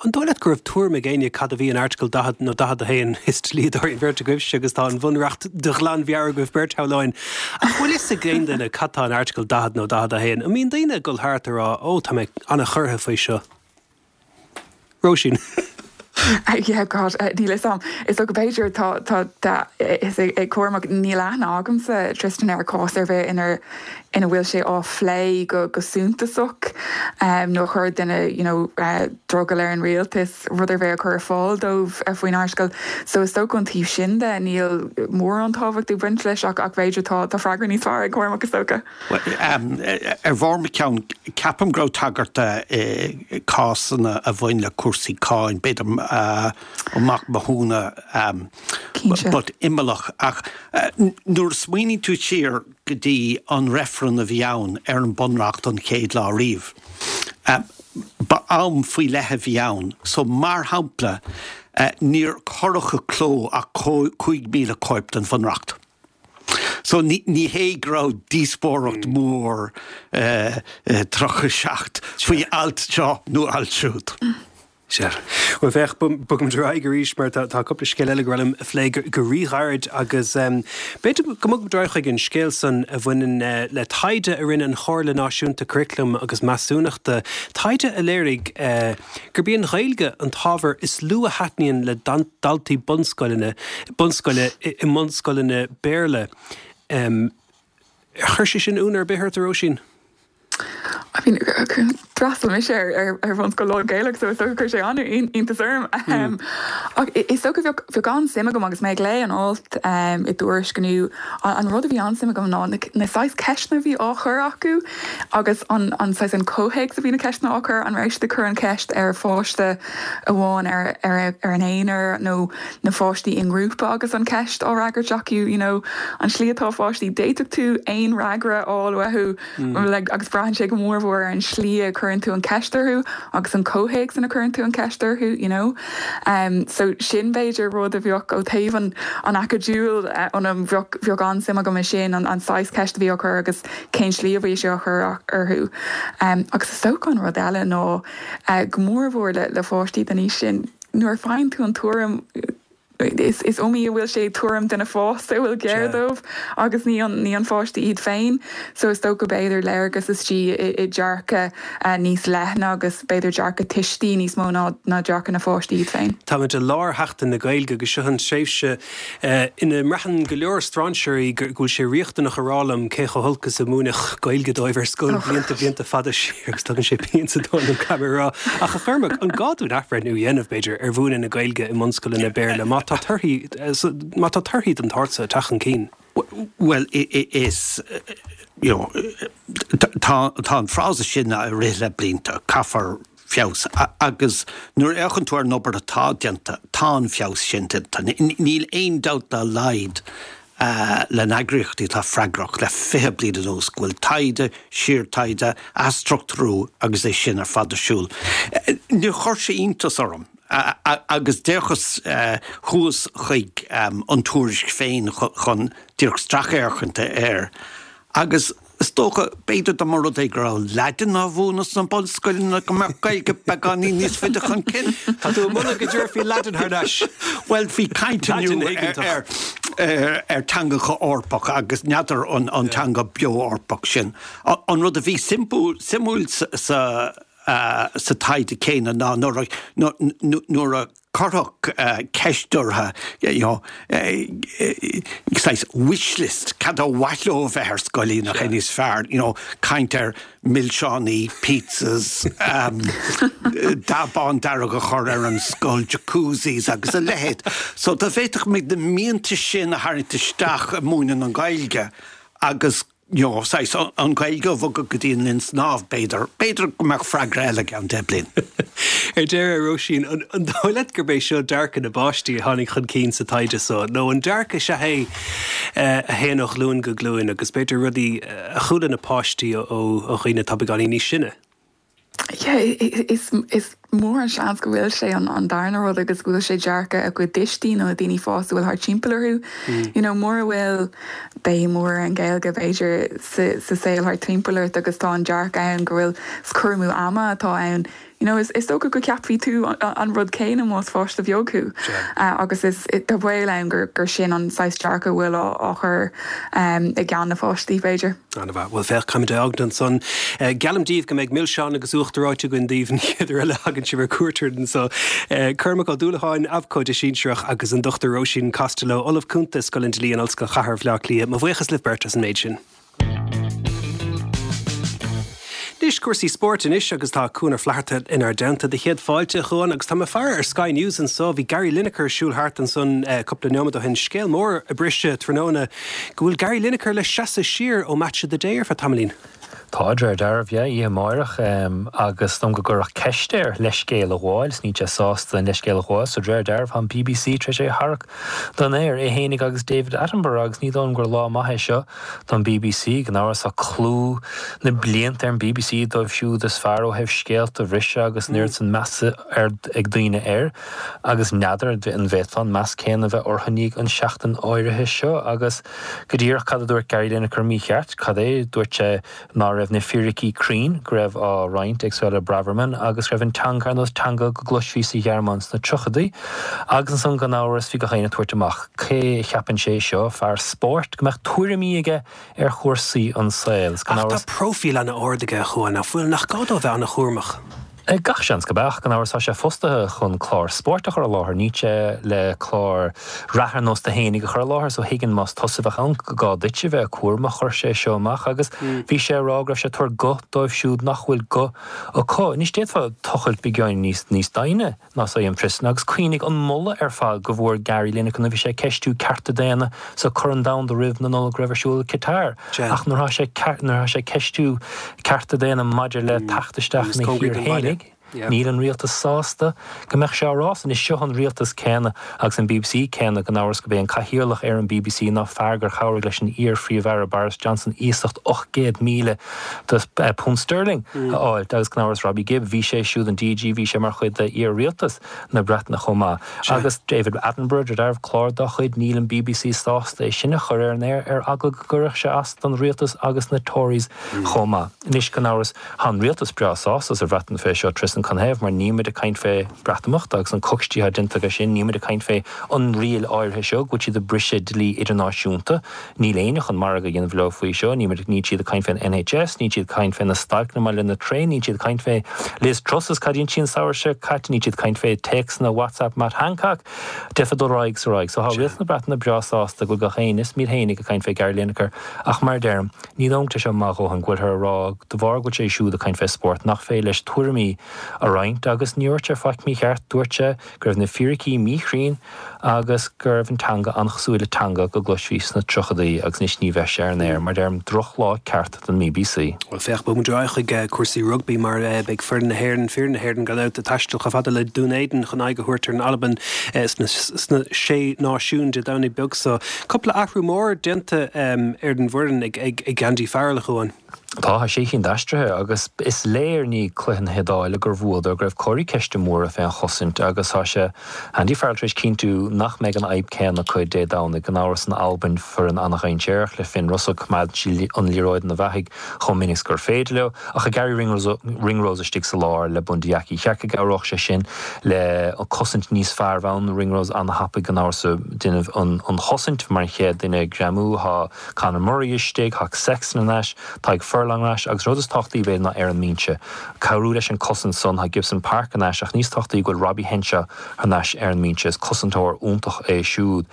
An dóigh leat go raibh tuairim ag éinne cad a bhí in Airteagal 40 nó 41? Is dlíodóirí an bheirt agaibhse agus tá an Bhunreacht de ghlanmheabhair agaibh beirt, shamhlóinn. Ach bhfuil fhios ag aon duine cad tá in Airteagal 40 nó 41? An mbíonn daoine ag dul thart ag rá, 'Ó, tá mé an-chorraithe faoi seo'? Róisín. Yeah, God, níl fhios a'm. Is dócha b'fhéidir tá, tá, tá fhios ag Cormac, níl aithne agamsa, Tristan, ar chás ar bith inar, ina bhfuil sé á phlé go go suntasach nó a chuir duine you know drogall ar an rialtas rud ar bith a chur ar fáil dóibh faoin airteagal. So is dócha ón taobh sin de níl mórán tábhacht ag baint leis ach ach b'fhéidir tá tá freagra níos fearr ag Cormac is dócha. Ar bharr mo cheann, ceapaim go raibh tagairt do i cásanna a bhain le cúrsaí cáin, b'fhéidir Ó Mac Mathúna, but imeallach. Ach nuair a smaoiníonn tú siar go dtí an reifreann a bhí ann ar an Bunreacht an chéad lá riamh, ba am faoi leith a bhí ann. So, mar shampla, níor cuireadh i gcló ach 5,000 cóip den Bhunreacht. So ní hé go raibh díospóireacht mhór i 37 faoi alt seo nó alt siúd. Sea. Bhuel, féach, bogfaimid ar aghaidh arís mar tá cúpla scéal eile gur mhaith liom a phlé go ríghairid agus b'fhéidir go mbogfaimid ar aghaidh chuig an scéal san a bhaineann le taighde a rinne an Chomhairle Náisiúnta Curaclaim agus Measúnachta, taighde a léirigh gurb í an Ghaeilge an t-ábhar is lú a thaitníonn le daltaí bunscoileanna, bunscoile i mbunscoileanna Béarla. Ar chuir sé sin ionadh ar bith ort, a Róisín? I mean, d'fhreastail mise ar ar bhunscoil lán-Ghaelach so is dócha chuir sé an-iontas orm. Ach is dócha bheadh bheadh an-suim agam agus mé ag léamh an alt i dTuairisc inniu, an rud a bhí an-suim agam ná na saghas ceisteanna a bhí á chur acu agus an an saghas an comhthéacs a bhí na ceisteanna á chur, an raibh siad ag cur an cheist ar pháiste amháin ar ar ar an aonar nó na pháistí i ngrúpa agus an cheist á fhreagairt acu, you know, an tslí atá pháistí, d'fhéadfadh tú aon fhreagra a fháil uathu like agus braitheann sé go mór mhór ar an slí a cuireann tú an cheist orthu agus an comhthéacs ina cuireann tú an cheist orthu, you know. Um, so sin b'fhéidir rud a bheadh ó thaobh an an acadúil ionam, bheadh bheadh an-suim agam i sin, an an saghas ceist a bhí á chur agus cén slí a bhí sé á chur orthu. Um, agus is dócha an rud eile ná uh, go mór mhór le le pháistí den aois sin, Nuair a faigheann tú an tuairim, is iomaí a bhfuil sé tuairim duine fásta a bhfuil géar dóibh agus ní an ní an pháiste iad féin. So is dócha b'fhéidir léargas istigh i dearcadh níos leithne agus b'fhéidir dearcadh tuistí níos mó ná ná dearcadh na pháistí iad féin. Táimid i lár Sheachtain na Gaeilge agus seo an tréimhse ina mbraitheann go leor strainséirí go bhfuil sé riachtanach a rá liom cé chomh holc is a múineadh Gaeilge dóibh ar scoil blianta blianta fada siar agus tugann sé pian sa tóin dom caithfidh mé a rá. Ach a Chormaic, an gá dúinn athbhreithniú a dhéanamh, b'fhéidir, ar mhúineadh na Gaeilge i mbunscoileanna Béarla má tá torthaí má tá torthaí den tsórt seo ag teacht chun cinn? Bhuel, is, you know, tá an frása sin ag rith le blianta, caithfear feabhas agus nuair a fhéachann tú ar an obair atá déanta, tá an feabhas sin déanta. Níl aon dabht dá laghad le na heagraíochtaí atá freagrach le 20 bliain anuas go bhfuil taighde, síortaighde, athstruchtúrú agus é sin ar fad ar siúl. Níor chuir sé iontas orm agus d'fhéachas thuas chuig an tuairisc féin chun díreach stracfhéachaint air agus Is dócha, b'fhéidir dá mba rud é go raibh Laidin á mhúineadh sna bunscoileanna go mbeadh Gaeilge beagáinín níos faide chun cinn. Tá tú ag moladh go dtabharfaí Laidin thar n-ais. Bhuel, bhí caint inniu ar ar teangacha Eorpacha agus n'fheadar an teanga beo Eorpach sin. An rud a bhí suimiúil sa sa taighde céanna ná nuair a nuair a cuireadh ceist orthu, you know, saghas wish list, cad ba mhaith leo a bheith ar scoil nach é níos fearr, you know, caint ar milseánaí, pizzas, dath bán dearg a chur ar an scoil, jacuzzis agus a leithéid. So dá bhféadfadh muid na mianta sin a tharraingt isteach i múineadh na Gaeilge agus you know, saghas, an Ghaeilge a bhogadh go dtí an linn snámh, b'fhéidir. B'fhéidir go mbeadh freagra eile i gceann 10 bliain. Ar deireadh, a Róisín, an dóigh leat gurb é seo dearcadh na bpáistí a tháinig chun cinn sa taighde so, nó an dearcadh sea é a théann ó ghlúin go glúin agus b'fhéidir rudaí a chuala na páistí ó dhaoine atá beagáinín níos sine? Yeah, is is mór an seans go bhfuil sé an darna rud agus go bhfuil sé dearcadh a gcuid tuistí nó na daoine fásta a bhfuil thart timpeall orthu. You know, mura bhfuil béim mhór ar an Ghaeilge b'fhéidir sa sa saol thart timpeall ort agus tá an dearcadh ann go bhfuil is cur amú ama atá ann, you know, is is dócha go gceapfaidh tú an rud céanna más pháiste bheag thú. Agus is tá baol ann gur gur sin an saghas dearcadh a bhfuil á á chur i gceann na pháistí b'fhéidir. An-mhaith. Bhuel, féach, caithfimid é a fhágaint ansan. Geallaim daoibh go mbeidh milseáin agus uachtar reoite againn daoibh an chéad uair eile a thagann sibh ar cuairt orainn anso. Cormac Ó Dúlacháin, Abhcóide Sinsearach, agus an Dr Róisín Costello, Ollamh Cúnta i Scoil an Dlí in Ollscoil Chathair Bhaile Átha Cliath. Mo bhuíochas libh beirt as an méid sin. Anois, cúrsaí spóirt anois agus tá Cuan Ó Flatharta inár dteannta. Do chéad fáilte, a Chuain, agus tá mé ag faire ar Sky News anso. Bhí Gary Lineker ag siúl thart ansan cúpla neomad ó shin. Scéal mór a briseadh tráthnóna go bhfuil Gary Lineker le seasamh siar ó Match of the Day ar feadh tamaillín. Tá, de réir dealraimh, yeah, oíche amáireach, agus is dóigh liom go gcuireadh ceist air leithscéal a ghabháil, is níl sé sásta an leithscéal a ghabháil, so de réir dealraimh tá an BBC tar éis é a tharrac den aer, é fhéinig agus David Attenborough, agus ní dóigh liom gur lá maith é seo don BBC, gan amhras tá clú na blianta ar an BBC dóibh siúd is fearr ó thaobh scéalta a bhriseadh agus an oiread san measa ag daoine air, agus n'fheadar an bhféadfá an meas céanna a bheith orthu i ndiaidh an seachtain áirithe seo, agus. Go díreach cad a dúirt Gary Lineker mícheart? Cad é? Dúirt sé ná raibh. raibh na fíricí cruinn go raibh á roinnt ag Suella Braverman agus go raibh an teanga ar nós teanga go gcloisfí sa Ghearmáin sna tríochadaí. Agus ansan gan amhras bhí gach éinne ag tabhairt amach cé a cheapann sé seo, fear spóirt, go mbeadh tuairimí aige ar chúrsaí an saoil. Is gan Ach tá amhras. próifíl an-ard aige, a Chuáin, nach bhfuil? Nach gá dó a bheith an-chúramach? Gach seans gurb ea, ach gan amhras tá sé fostaithe chun clár spóirt a chur i láthair, níl sé le clár reatha ar nós do fhéinig a chur i láthair, so thuigfinn más tusa a bheadh ann go gá duit a bheith cúramach. Chuir sé seo amach agus bhí sé ag rá go raibh sé ag tabhairt guth dóibh siúd nach bhfuil guth acu. Anois d'fhéadfá tochailt beagáinín níos níos doimhne. ná san Tristan agus cuimhnigh an moladh ar fad go bhfuair Gary Lineker nuair a bhí sé ag ceistiú cearta daonna sa Corn Domhanda roimh na Nollag a raibh ar siúl i Qatar ach nuair atá sé nuair atá sé ag ceistiú cearta daonna maidir le teacht isteach ina thír fhéinig níl an rialtas sásta go mbeadh sé á rá san. Is seo an rialtas céanna agus an bbc céanna gan amhras gurb é an cathaoirleach ar an bbc ná fear gur chabhraigh leis an iar-Phríomh-Aire Boris Johnson iasacht 800,000 de punt sterling a fháilt agus gan amhras Robbie Gibb, bhí sé siúd an DG, bhí sé mar chuid de iar-rialtas na Breataine chomh maith. Agus David Attenborough, de réir clár dá chuid, níl an bbc sásta é sin a chur ar an aer ar eagla go gcuirfeadh sé as don rialtas agus na Tories chomh maith. Anois gan amhras tá an rialtas breá sásta sa Bhreatain fé seo, Tristan canathaobh mar níl muid ag caint fé Breatimeacht agus an coicstí atá déanta aige sin, níl muid ag caint fé an riail áirithe seo go bhfuil siad ag briseadh dlí idirnáisiúnta. Níl éinne chun margadh a dhéanamh leo faoi seo. Níl muid, níl siad ag caint fén NHS, níl siad ag caint fé na stailceanna maidir le na traein, níl siad ag caint fé Liz Truss is cad a dhein sí an samhradh seo caite, níl siad ag caint fé téacsanna WhatsApp Matt Hancock. D'fhéadfá dul ar aghaidh is ar aghaidh. So tá rialtas na Breataine breá sásta go bhfuil gach éinne, is iad fhéinig, ag caint fé Gary Lineker ach mar a deirim, ní dóigh liom go bhfuil sé seo maith a dhóthain go bhfuilthear ag rá de bharr go bhfuil sé siúd ag caint fé spórt nach féidir leis tuairimí a roinnt agus ní dúirt sé faic mícheart, dúirt sé go raibh na fíricí míchruinn agus go raibh an teanga an-chosúil le teanga go gcloisfí sna tríochadaí agus anois ní bheidh sé ar an aer, mar deirim, drochlá ceart don mBBC. Bhuel, féach, bogfaidh muid ar aghaidh chuig cúrsaí rugbaí mar beidh foireann na hÉireann, fir na hÉireann gan dabht, ag taisteal chomh fada le Dún Éideann chun aghaidh a thabhairt ar an Albain sna Sé Náisiún Dé Domhnaigh beag so. Cúpla athrú mór déanta ar an bhfoireann ag Andy Farrell, a Chuáin. Tá, tá sé chinn d'aistrithe agus is léir i ndiaidh cluiche na hIodáile gur bhuadar go raibh comharthaí ceiste móra fén chosaint agus tá sé, Andy Farrell tar éis cinntiú nach mbeidh an fhadhb céanna acu Dé Domhnaigh. Gan amhras an Albain foireann an-dhainséarach le Finn Russell coimeádann siad an liathróid ina bheathaigh chomh minic is gur féidir leo ach tá Garry Ringrose istigh sa lár le Bundee Aki. Cheart go gcabhródh sé sin le cosaint níos fearr bheith ann. Ringrose an-thapaidh gan amhras ag déanamh an chosaint mar an chéad duine ag greamú. Tá Conor Murray istigh, tá Sexton ar ais, Tadhg Furlong ar ais agus rud is tábhachtaí b'fhéidir ná ar an mbinse. Cabhrú leis an cosaint san, tá Gibson Park ar ais ach níos tábhachtaí go bhfuil Robbie Henshaw thar n-ais ar an mbinse. Is cosantóir iontach é siúd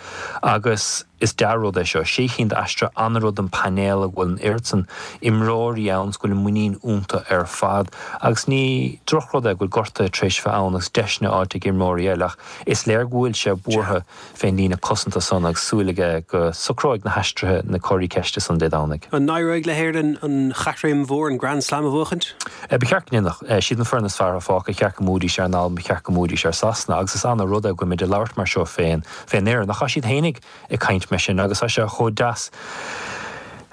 agus is dea-rud é seo. Sé chinn d'aistrithe, an-rud don painéal go bhfuil an oiread san imreoirí ann is go bhfuil an muinín iontu ar fad agus ní drochrud é go bhfuil gortuithe tar éis bheith ann agus deiseanna faighte ag imreoirí eile ach is léir go bhfuil sé buartha fén líne cosanta san agus súil aige go socróidh na haistrithe na comharthaí ceiste san Dé Domhnaigh. An n-éireoidh le hÉirinn an chaithréim mhór, an Grand Slam a bhuachaint? Ba cheart go ndéanfadh. Siad an foireann is fearr atá fágtha. Ba cheart go mbuafaidís ar an Albain, ba cheart go mbuafaidís ar Sasana agus is ana rud é go bhfuil muid ag labhairt mar seo fén fén fhoireann. Ach tá siad fhéinig ag caint mar sin agus tá sé chomh deas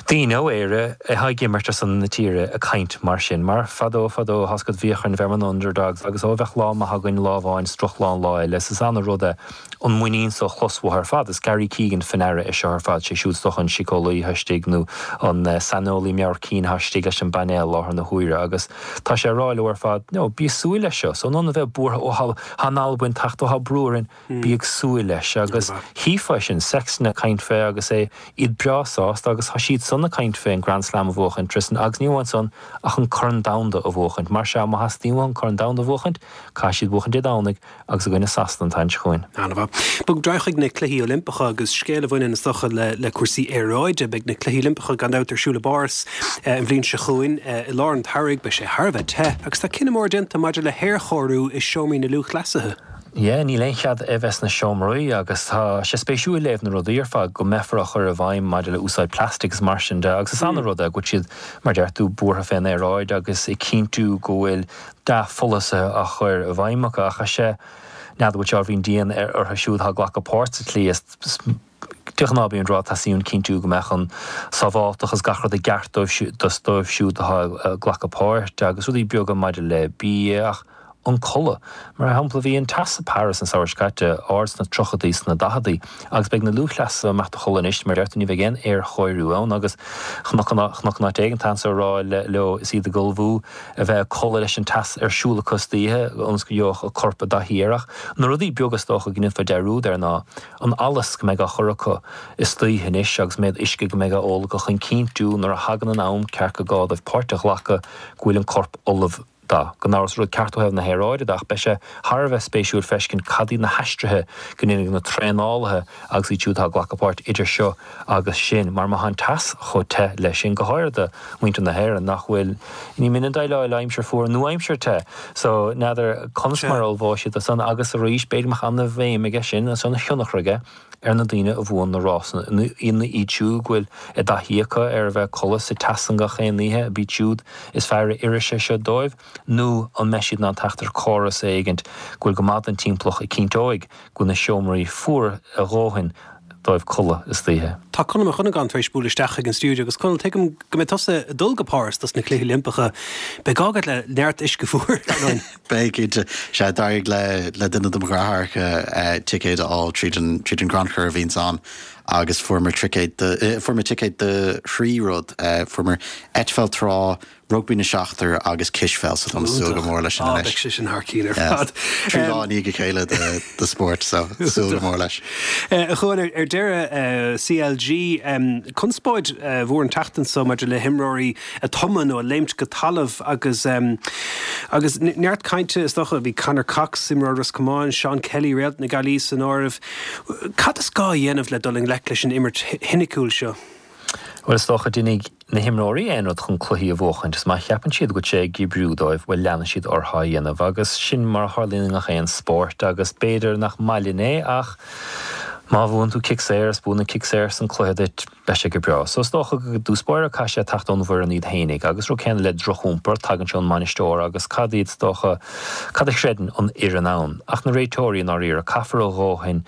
daoine ó Éire atá ag imirt ar son na tíre ag caint mar sin. Mar fadó fadó tá's agat bhíodh orainn bheith mar na underdogs agus ó bheadh lá maith againn lá amháin is drochlá an lá eile. Is ana rud é an muinín so a chlos uathu ar fad. Is Gary Keegan fá ndeara é seo ar fad, sé siúd is dócha an síceolaí atá istigh nó an saineolaí meabhair cinn atá istigh leis an bpainéal i láthair na huaire agus tá sé ag rá leo ar fad, no, bí ag súil leis seo. So in ionad a bheith buartha, ó tá an Albain ag teacht, ó tá brú orainn, bí ag súil leis. Agus chífeá sin, Sexton ag caint fé agus é, iad breá sásta agus tá siad san ag caint fé an Grand Slam a bhuachaint, Tristan, agus ní amháin san ach an Corn Domhanda a bhuachaint. Mar sea, má theastaíonn uathu an Corn Domhanda a bhuachaint, caithfidh siad buachaint Dé Domhnaigh agus i gcoinne Sasana an tseachtain seo chugainn. An-mhaith. Bogfaidh muid ar aghaidh chuig na Cluichí Oilimpeacha agus scéal a bhaineann is dócha le cúrsaí aeráide. Beidh na Cluichí Oilimpeacha gan dabht ar siúl i bPáras an bhliain seo chugainn i lár an tsamhraidh. Beidh sé thar a bheith te agus tá cinneadh mór déanta maidir le haerchóiriú i seomraí na lúthchleasaithe. Yeah, níl aon chead é bheith sna seomraí agus tá sé spéisiúil léamh na rudaí ar fad go mbeifear á chur i bhfeidhm maidir le úsáid plastic is mar sin de agus is ana-rud é go bhfuil siad, mar deir tú, buartha fén aeráid agus ag cinntiú go bhfuil dea-pholasaithe á chur i bhfeidhm acu ach is ea, n'fheadar an bhfuil sé ábhairín dian orthu siúd atá ag glacadh páirt sa tslí is de ghnáth bíonn rá teastaíonn cinntiú go mbeadh an sábháilteacht agus gach rud i gceart dóibh siúd atá ag glacadh páirt agus rudaí beaga maidir le bia ach. an codladh. Mar shampla, bhí an teas i Paris an samhradh seo caite ard sna tríochaidí, sna daicheadaí agus beidh na lúthchleasaithe ag imeacht a chodladh anois, mar a deir tú, ní bheidh aon aerchóiriú ann agus chonac in áit éigin anso ag rá leo is iad ag ullmhú a bheith ag codladh leis an teas ar siúl acu istoíche ionas go gheobhadh a corp i dtaithí air. Ach na rudaí beaga is dócha go ndéanfá dearúd air ná an allas go mbeidh á chur acu istoíche anois agus méid uisce go mbeidh á ól acu chun cinntiú nuair a thagann an am ceart gur gá dóibh páirt a ghlacadh go bhfuil an corp ullamh dó. Gan amhras rud ceart ó thaobh na haeráide de ach beidh sé thar a bheith spéisiúil feiscint cad iad na haistrithe go ndéanfaidh na traenálaithe agus iad siúd atá ag glacadh páirt idir seo agus sin mar má tá an teas chomh te leis sin, go háirithe do mhuintir na hÉireann nach bhfuil, ní minic déileáil le aimsir fuar nó aimsir te so n'fheadar conas mar a ullmhóidh siad do san agus arís b'fhéidir go mbeadh ana-bhéim aige sin agus ana-thionchar aige ar na daoine a bhuann na rásanna, iad siúd go bhfuil a dtaithí acu ar a bheith ag codladh sa teas san gach aon oíche, ab iad siúd is fearr a oirfidh sé seo dóibh, nó an mbeidh siad in ann teacht ar córas éigint go bhfuil go maith don timpeallacht a cinnteoidh go bhfuil na seomraí fuar a dhóthain dóibh codladh istoíche. Tá Conall Mac Dhonnagáin tar éis bualadh isteach chuig an stiúideo agus Conall, tuigim go mbeidh tusa ag dul go Páras dos na Cluichí Oilimpeacha. Beidh gá agat le neart uisce fuar, ar ndóigh. Beidh, cinnte. Sea, d'éirigh le le duine de mo dheartháireacha ticéad a fháil tríd an tríd an gcrannchur a bhíonns ann agus fuaireamar ticéad do fuaireamar ticéad do thrí rud. Fuaireamar eitpheil trá, rugbaí na seachtar agus cispheil so táim ag súil go mór leis sin anois. Á, beidh sé sin thar cinn ar fad. Trí lá i ndiaidh a chéile de de spórt so súil go mór leis. A Chuain, ar deireadh, CLG, conspóid mhór an tseachtain seo maidir le himreoirí ag tumadh nó ag léimt go talamh agus agus neart cainte is dócha. Bhí Conor Cox, imreoir Ros Comáin, Seán Kelly, réalt na Gaillimhe san áireamh. Cad is gá a dhéanamh le dul i ngleic leis an imirt shoiniciúil seo? Bhuel, is dócha, déanfaidh na himreoirí aon rud chun cluichí a bhuachaint is má cheapann siad go bhfuil sé ag oibriú dóibh, bhuel, leanfaidh siad orthu á dhéanamh agus sin mar a tharlaíonn i ngach aon spórt agus b'fhéidir nach maith linn é ach má bhuann tú cic saor is buann an cic saor san cluiche duit, Beidh sé go breá. So is dócha go dtús báire caithfidh sé teacht ón bhfoireann iad fhéinig. Agus rud céanna le drochiompar, tagann sé ón mbainisteoir agus cad iad is dócha, cad a chreideann an fhoireann ann. Ach na réiteoirí i ndáiríre, caithfear a dhóthain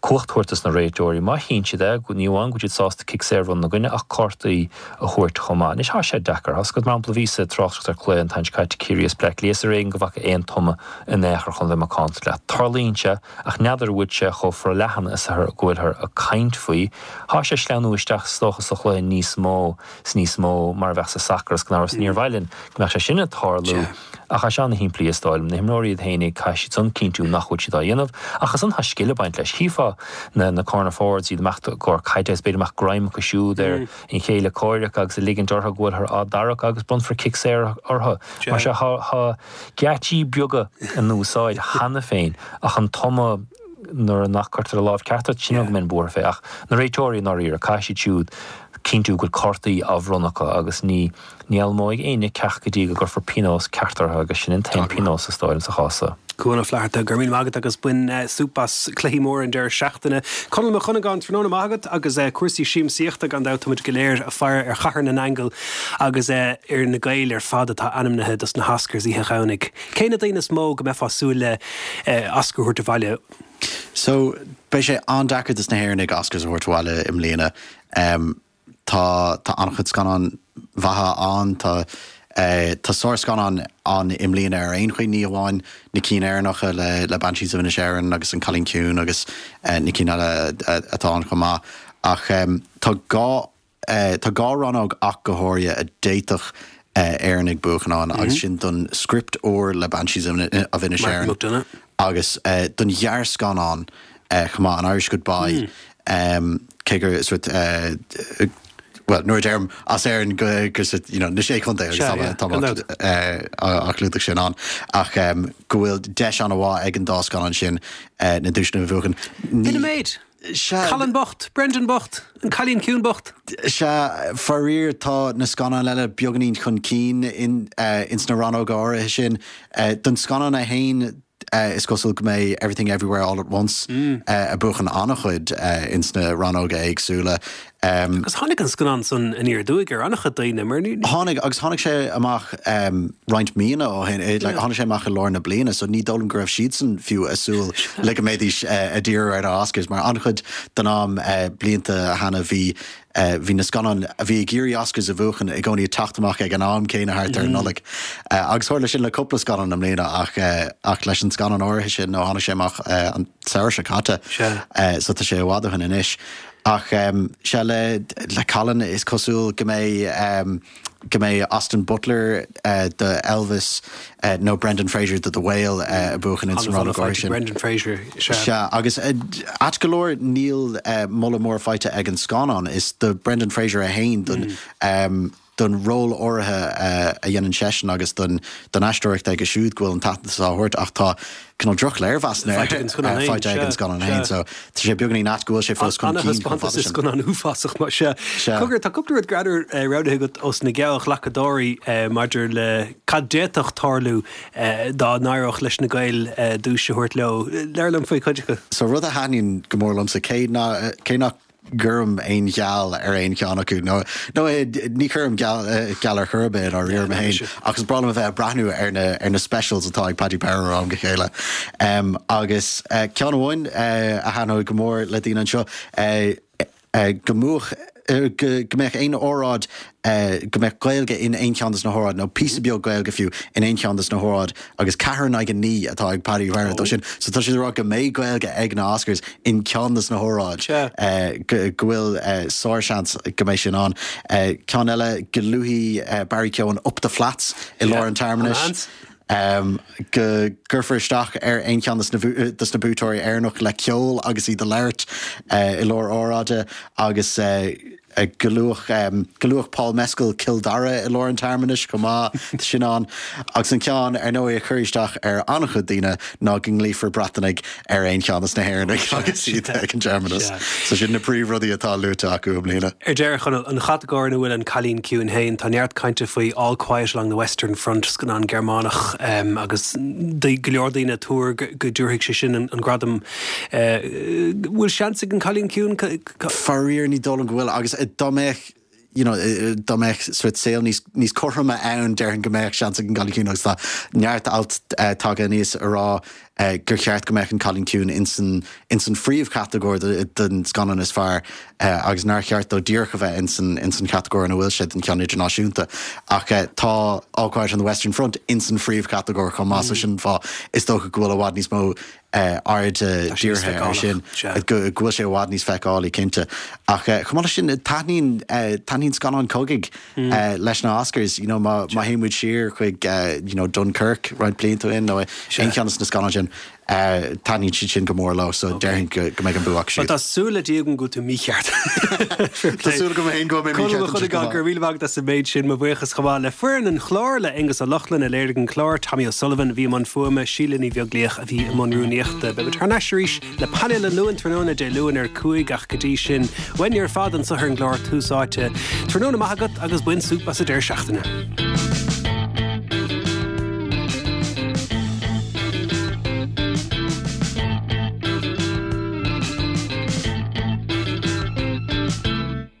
cumhacht a thabhairt dos na réiteoirí. Má chíonn siad é, ní amháin go bhfuil siad sásta cic saor a bhronnadh ina gcoinne ach cártaí a thabhairt chomh maith. Anois tá sé deacair. Tá 'fhios agat, mar shampla, bhíos ag tráchtaireacht ar chluiche an tseachtain seo caite Ciarraí is Bleá Cliath is ar éigean go bhfaca aon tumadh in aon chor chun bheith macánta leat. Tarlaíonn sé ach n'fheadar an bhfuil sé chomh forleathan is go bhfuilthear ag caint faoi. Thá sé ag sleamhnú isteach is dócha sa chluiche níos mó 's níos mó mar a bheadh sa sacar is gan amhras níor mhaith linn go mbeadh sé sin ag tarlú ach tá sé ana-shimplí is dóigh liom. Na himreoirí iad fhéinig caithfidh siad san cinntiú nach bhfuil siad á dhéanamh ach ansan tá scil ag baint leis. Chífeá na na corner forwards iad ag imeacht i gcomhair caide is b'fhéidir go mbeadh greim acu siúd ar an chéile comhraic agus ag ligint orthu go bhfuilthear á dtarrac agus bronnfar cic saor orthu. Mar sea thá thá geáitsí beaga in úsáid cheana féin ach an tumadh nuair nach gcuirtear an lámh ceart ort, sin go mbíonn buartha fé. Ach na réiteoirí i ndáiríre, caithfidh siad siúd cinntiú go bhfuil cártaí á bhronnadh acu agus ní ní fhoghlaimeoidh éinne ceacht go dtí go gcuirfear pionós ceart orthu agus sin an t-aon pionós is dóigh liom sa chás seo. Cuan Ó Flatharta, go raibh míle maith agat agus bain súp as cluichí móra an deireadh seachtaine. Conall Mac Dhonnagáin, tráthnóna maith agat agus cúrsaí siamsaíochta gan dabht, táimid go léir ag faire ar Chathair na nAingeal agus ar na Gaeil ar fad atá ainmnithe dos na hOscars oíche Dhomhnaigh. Cé na daoine is mó go mbeifeá ag súil le Oscar a thabhairt abhaile? So, beidh sé an-deacair dos na hÉireannaigh Oscars a thabhairt abhaile i mbliana. Tá tá an-chuid scannáin mhaithe ann, tá tá sárscannáin ann i mbliana ar aon chaoi, ní amháin na cinn Éireannacha le le Banshees of Inisherin agus An Cailín Ciúin agus na cinn eile atá ann chomh maith, ach tá dhá Tá dhá rannóg ach go háirithe a d'fhéadfadh Éireannaigh buachan ann agus sin don script úr le Banshees of Inisherin agus don ghearrscannán chomh maith, An Irish Goodbye, cé gur sort bhuel, nuair a deirim as Éirinn go gur sort you know na Sé Chontae agus tá á chlúdach sin ann ach go bhfuil deis an-mhaith ag an dá scannán sin na duaiseanna a bhuachan. B'in an méid! Sea. Colin bocht, Brendan bocht, an Cailín Ciúin bocht. Sea, faraor tá na scannáin eile beagáinín chun cinn ins na rannóga áirithe sin. Don scannán é fhéin is cosúil go mbeidh Everything Everywhere All at Once ag buachan an-chuid ins na rannóga éagsúla. Agus tháinig an scannán san aniar aduaidh ar an-chuid daoine, mar ní. Tháinig, agus tháinig sé amach roinnt míonna ó shin, like tháinig sé amach i lár na bliana, so ní dóigh liom go raibh siadsan fiú ag súil le go mbeidís ag díriú ar na Oscars, mar an-chuid den am blianta cheana bhí bhí na scannáin a bhí ag iarraidh Oscars a bhuachan i gcónaí ag teacht amach ag an am céanna thart ar an Nollaig. Agus tharla sin le cúpla scannán i mbliana ach ach leis an scannán áirithe sin nó tháinig sé amach an samhradh seo caite so tá sé i bhfad ó shin anois. Ach sea le le Colin is cosúil go mbeidh go mbeidh Austin Butler do Elvis nó Brendan Fraser do The Whale ag buachan ins an rannóg áirithe sin. Brendan Fraser, sea. Sea, agus ait go leor níl moladh mór faighte ag an scannán. Is do Brendan Fraser é féin don don ról áirithe a dhéanann seisean agus don don aisteoireacht aige siúd go bhfuil an t-aitheantas á thabhairt ach tá cineál droch-léirmheasanna Faighte ag an scannán féin, faighte ag an scannán féin so tá sé beagáinín ait go bhfuil sé fós chun cinn chomh fada sin. Scannán uafásach mar sea. Sea. Cogar, tá cúpla rud greannmhar roghnaithe agat ós na geallghlacadóirí maidir le cad d'fhéadfadh tarlú dá n-éireodh leis na Gaeil duais a thabhairt leo. Labhair liom faoi chuid acu. So rud a thaitníonn go mór liomsa, cé nach gcuirim aon gheall ar aon cheann acu, nó nó ní chuirim geall geall ar chor ar bith i ndáiríre mé féin, ach is breá liom a bheith ag breathnú ar na ar na specials atá ag Paddy Power ó am go chéile. Agus ceann amháin a thaitneoidh go mór le daoine anseo, go mbuafadh go go mbeadh aon óráid go mbeadh Gaeilge in aon cheann des na hóráid, nó píosa beag Gaeilge fiú, in aon cheann des na hóráid, agus ceathair in aghaidh a naoi atá ag Paddy Power dó sin. So tá siad ag rá go mbeidh Gaeilge ag na Oscars in ceann des na hóráid, go bhfuil sár-seans go mbeidh sin ann. Ceann eile, go luafaidh Barry Keoghan Up the Flats i lár an tsearmanais. Go gcuirfear isteach ar aon cheann des na buaiteoirí Éireannach le ceol agus iad ag labhairt i lár óráide agus go luafadh go luafadh Paul Mescal Cill Dara i lár an tsearmanais chomh maith, tá sin ann. Agus an ceann, ar ndóigh, a chuirfidh isteach ar an-chuid daoine ná go nglaofar Breatanaigh ar aon cheann des na hÉireannaigh agus iad ag an searmanas. So sin na príomhrudaí atá luaite acu i mbliana. Ar deireadh, Chonall, an chatagóir ina bhfuil An Cailín Ciúin féin, tá neart cainte faoi All Quiet Along the Western Front, scannán Gearmánach, agus go leor daoine ag tuar go dtabharfaidh sé sin an gradam. Bhfuil seans ag An Cailín Ciúin? Faraor, ní dóigh liom go bhfuil, agus dá mbeadh, you know, dá mbeadh sórt saol níos, níos cothroime ann, déarfainn go mbeadh seans ag an gCailín Ciúin agus tá neart alt tagtha aníos a rá gur cheart go mbeadh an Cailín Ciúin ins an, ins an phríomhchatagóir don scannán is fearr agus nár cheart dó díreach a bheith ins an, ins an chatagóir ina bhfuil sé don cheann idirnáisiúnta. Ach tá All Quiet on the Western Front ins an phríomhchatagóir chomh maith so sin an fáth is dócha go bhfuil i bhfad níos mó aird dírithe air sin, go bhfuil sé i bhfad níos feiceálaí, cinnte. Ach chomh maith leis sin, taitníonn, taitníonn scannáin cogaidh leis na Oscars. You know, má, má théann muid siar chuig, you know, Dunkirk roinnt blianta ó shin nó aon cheann de na scannáin sin, taitníonn siad sin go mór leo, so déarfainn go, go mbeidh an bua acu siúd. Tá súil le Dia agam go bhfuil tú mícheart. Tá súil agam féin go bhfuil mé mícheart Conall Ó Cuinneagáin, go raibh míle maith agat as an méid sin. Mo bhuíochas chomh maith le foireann an chláir, le Aonghus Ó Lochlainn a léirigh an clár, Tommy O'Sullivan a bhí i mbun fuaime, Síle Ní Bheaglaoich a bhí i mbun rúnaíochta. Beidh muid thar n-ais arís le painéal an Luain tráthnóna Dé Luain ar 5 ach go dtí sin, uainne ar fad anseo ar an gclár Tús Áite. Tráthnóna maith agat agus bain súp as an deireadh seachtaine.